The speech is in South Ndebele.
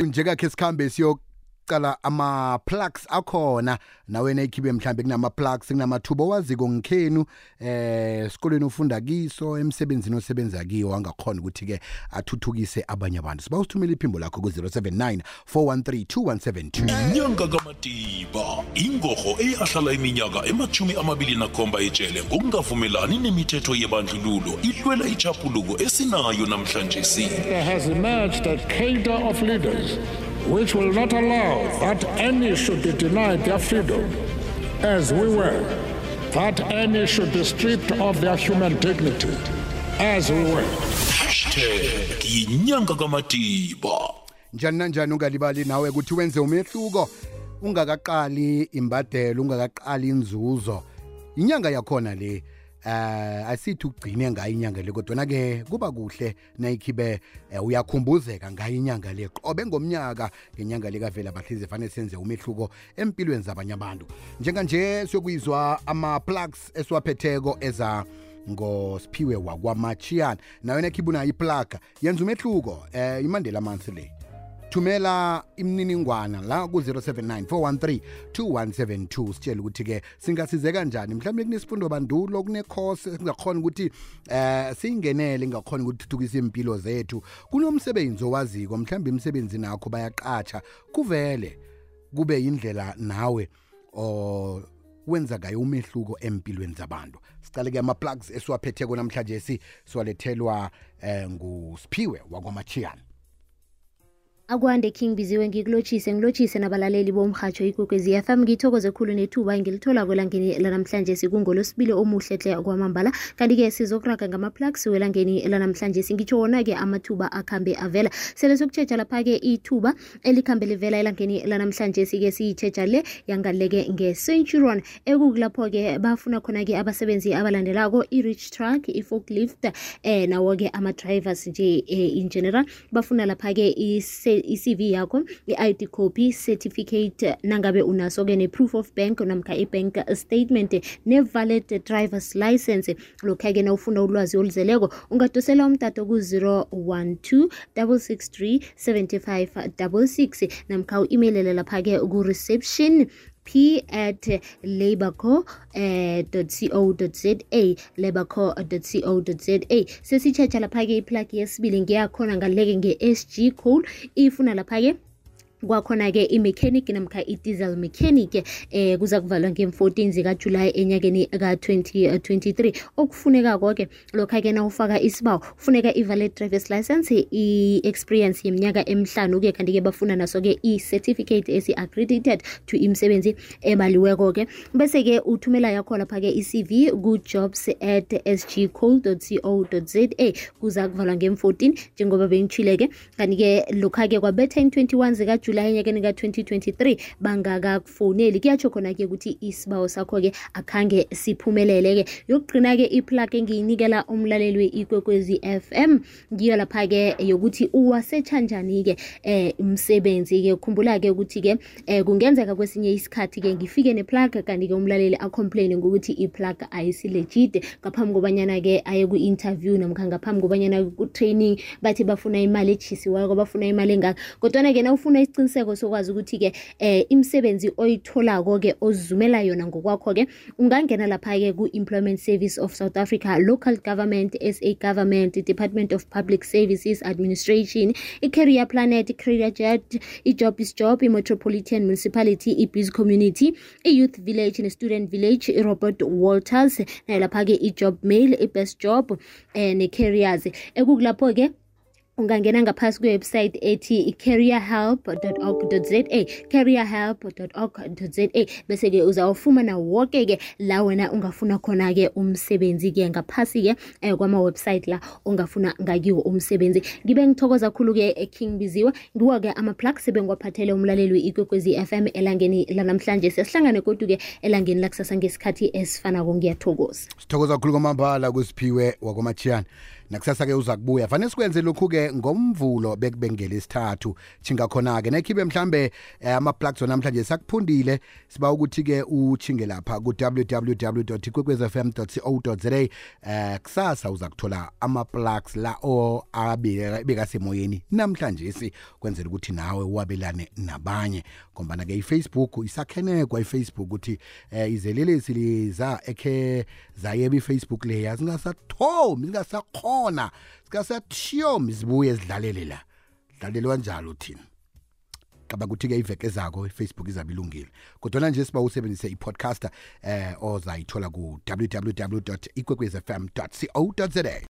njengakhe sikhambe siyocala ama-plugs akhona nawe nekhibe mhlambe kunama-plugs kunamathuba owaziko ngikhenu esikoleni ufunda kiso emsebenzini osebenza kiyo angakhona ukuthi-ke athuthukise abanye abantu siba usithumela iphimbo lakho ku-079 413 2172 inyanga kaMatiba ingorho eyahlala iminyaka ema-27 ejele ngokungavumelani nemithetho yebandlululo ihlwela ichapuluko esinayo namhlanje There has emerged a cadre of leaders which will not allow that any should be denied their freedom, as we were, that any should be stripped of their human dignity, as we were. #inyanga kaMatiba. njani nanjani ungalibali nawe ukuthi wenze umehluko ungakaqali imbadelo ungakaqali inzuzo inyanga yakhona le asithi ugcine ngayo inyanga le kodwa ke kuba kuhle nayikhibe uyakhumbuzeka ngayo inyanga le qobe ngomnyaka ngenyanga le kavela bahlize fanele senze umehluko empilweni zabanye abantu njenganje siyokuyizwa ama-plugs esiwaphetheko eza ngosiphiwe wakwamachiyana nayo nekhibuna iplug yenza umehluko imandela amansi le thumela imininingwana la ku-079 413 2172 sitshela ukuthi-ke singasizeka kanjani mhlawumbe kunesifundo bandulo kunecourse singakhona ukuthi siyingenele ngakhona ukuthi thuthukise impilo zethu kunomsebenzi owaziko mhlawumbe imisebenzi nakho bayaqatsha kuvele kube indlela nawe wenza ngayo umehluko empilweni zabantu sicale-ke ama-plugs esiwaphetheko namhlanje siwalethelwa ngusiphiwe wakwamachiyana Akwande King Biziwe ngilotshise nabalaleli bomhatsho ikwekwezi FM ngithokoze khulu nethuba ngilithola kwelangeni lanamhlanje sikungolosibili omuhle hle kwamambala kanti-ke sizokuraga ngama-plugs welangeni lanamhlanje ngitsho wona-ke amathuba akhambe avela sele sokutshetsha lapha-ke ithuba elikhambe livela elangeni lanamhlanje sike siyitshetsha le yangaleke nge-Centurion ekukulapho-ke bafuna khona-ke abasebenzi abalandelako i-reach truck, i-forklift nawo-ke ama-drivers nje in general bafuna lapha-ke i-CV yakho, i-ID copy, certificate nangabe unaso-ke ne-proof of bank namkha i-bank statement ne-valid driver's license lokha-ke na ufuna ulwazi oluzeleko ungadosela umtato ku-012 663 7566 namkha u-emailele lapha-ke ku-reception p@labourco.co.za labourco.co.za sesitshetsha lapha-ke iplug yesibili ngiyakhona ngaleke nge-SG code ifuna lapha-ke kwakhona-ke i-mechanic namkha i-diesel mechanic kuza kuvalwa nge-14 zikaJulayi enyakeni ka-2023 okufuneka-ko-ke lokha-ke na ufaka isibawo kufuneka i-valid driver's license i-experience yeminyaka emihlanu-ke kanti-ke bafuna naso-ke i-certificate esi-accredited to imisebenzi ebaliweko-ke bese-ke uthumela yakho lapha-ke i-CV ku-jobs@sgcode.co.za kuza kuvalwa nge-14 njengoba bengitshile-ke kanti-ke lokha-ke kwabetha in-21 zikaJulayi enyakeni ka-2023 bangakakufoneli kuyatsho khona-ke ukuthi isibawo sakho-ke akhange siphumelele-ke yokugcina-ke iplug engiyinikela umlaleli we-ikwekwezi FM ngiyo lapha-ke yokuthi uwasetsha njani-ke umsebenzi-ke khumbula-ke ukuthi-ke kungenzeka kwesinye isikhathi-ke ngifike neplug kanti-ke umlaleli acomplaine ngokuthi iplug ayisilegit ngaphambi kobanyana-ke aye ku-interview namkha ngaphambi kobanyana ku-training bathi bafuna imali etshisiweko bafuna imali engaka kodwana-ke na ufuna isiqiniseko sokwazi ukuthi-ke imisebenzi oyitholako-ke ozizumela yona ngokwakho-ke ungangena lapha-ke ku-Employment Service of South Africa, Local Government, SA Government, Department of Public Services Administration, i-Career Planet, i-Career Jet, i-Job is Job, i-Metropolitan Municipality, i-Biz Community, i-Youth Village ne-Student Village, i-Robert Walters nalapha-ke i-Job Mail, i-Best Job ne-Careers ekukulapho-ke ungangena ngaphasi kwe-website ethi careerhelp.org.za careerhelp.org.za bese-ke uzawufumana woke-ke la wena ungafuna khona-ke umsebenzi-ke ngaphasi-ke kwama-website la ungafuna ngakiwo umsebenzi ngibe ngithokoza khulu-ke King Biziwe ngiwo-ke ama-plug sebengiwaphathele umlaleli we-ikwekwezi FM elangeni lanamhlanje sesihlangane kodwa-ke elangeni lakusasa ngesikhathi esifanako ngiyathokoza sithokoza khulu kwamambala kusiphiwe wakwamachiyana nakusasa ke uza kubuya fanele sikwenze lokhu ke ngomvulo bekubengela isithathu chinga khona ke nekhibe mhlambe ama-plugs namhlanje sakuphundile siba ukuthi ke uchinge lapha ku www.ikwekwezfm.co.za kusasa uza kuthola ama-plugs la abekasemoyeni namhlanje kwenzela ukuthi nawe wabelane nabanye ngombana ke iFacebook isakhenekwa iFacebook ukuthi izelelesi liza ekhe zayeba iFacebook leya zingasathomi zingasakhona sikasathiyomi zibuye zidlalele la dlalelwa njalo thina kaba ukuthi ke iveke zakho iFacebook izabilungile kodwa nje siba usebenzise ipodcaster ozayithola ku www.ikwekwezfm.co.za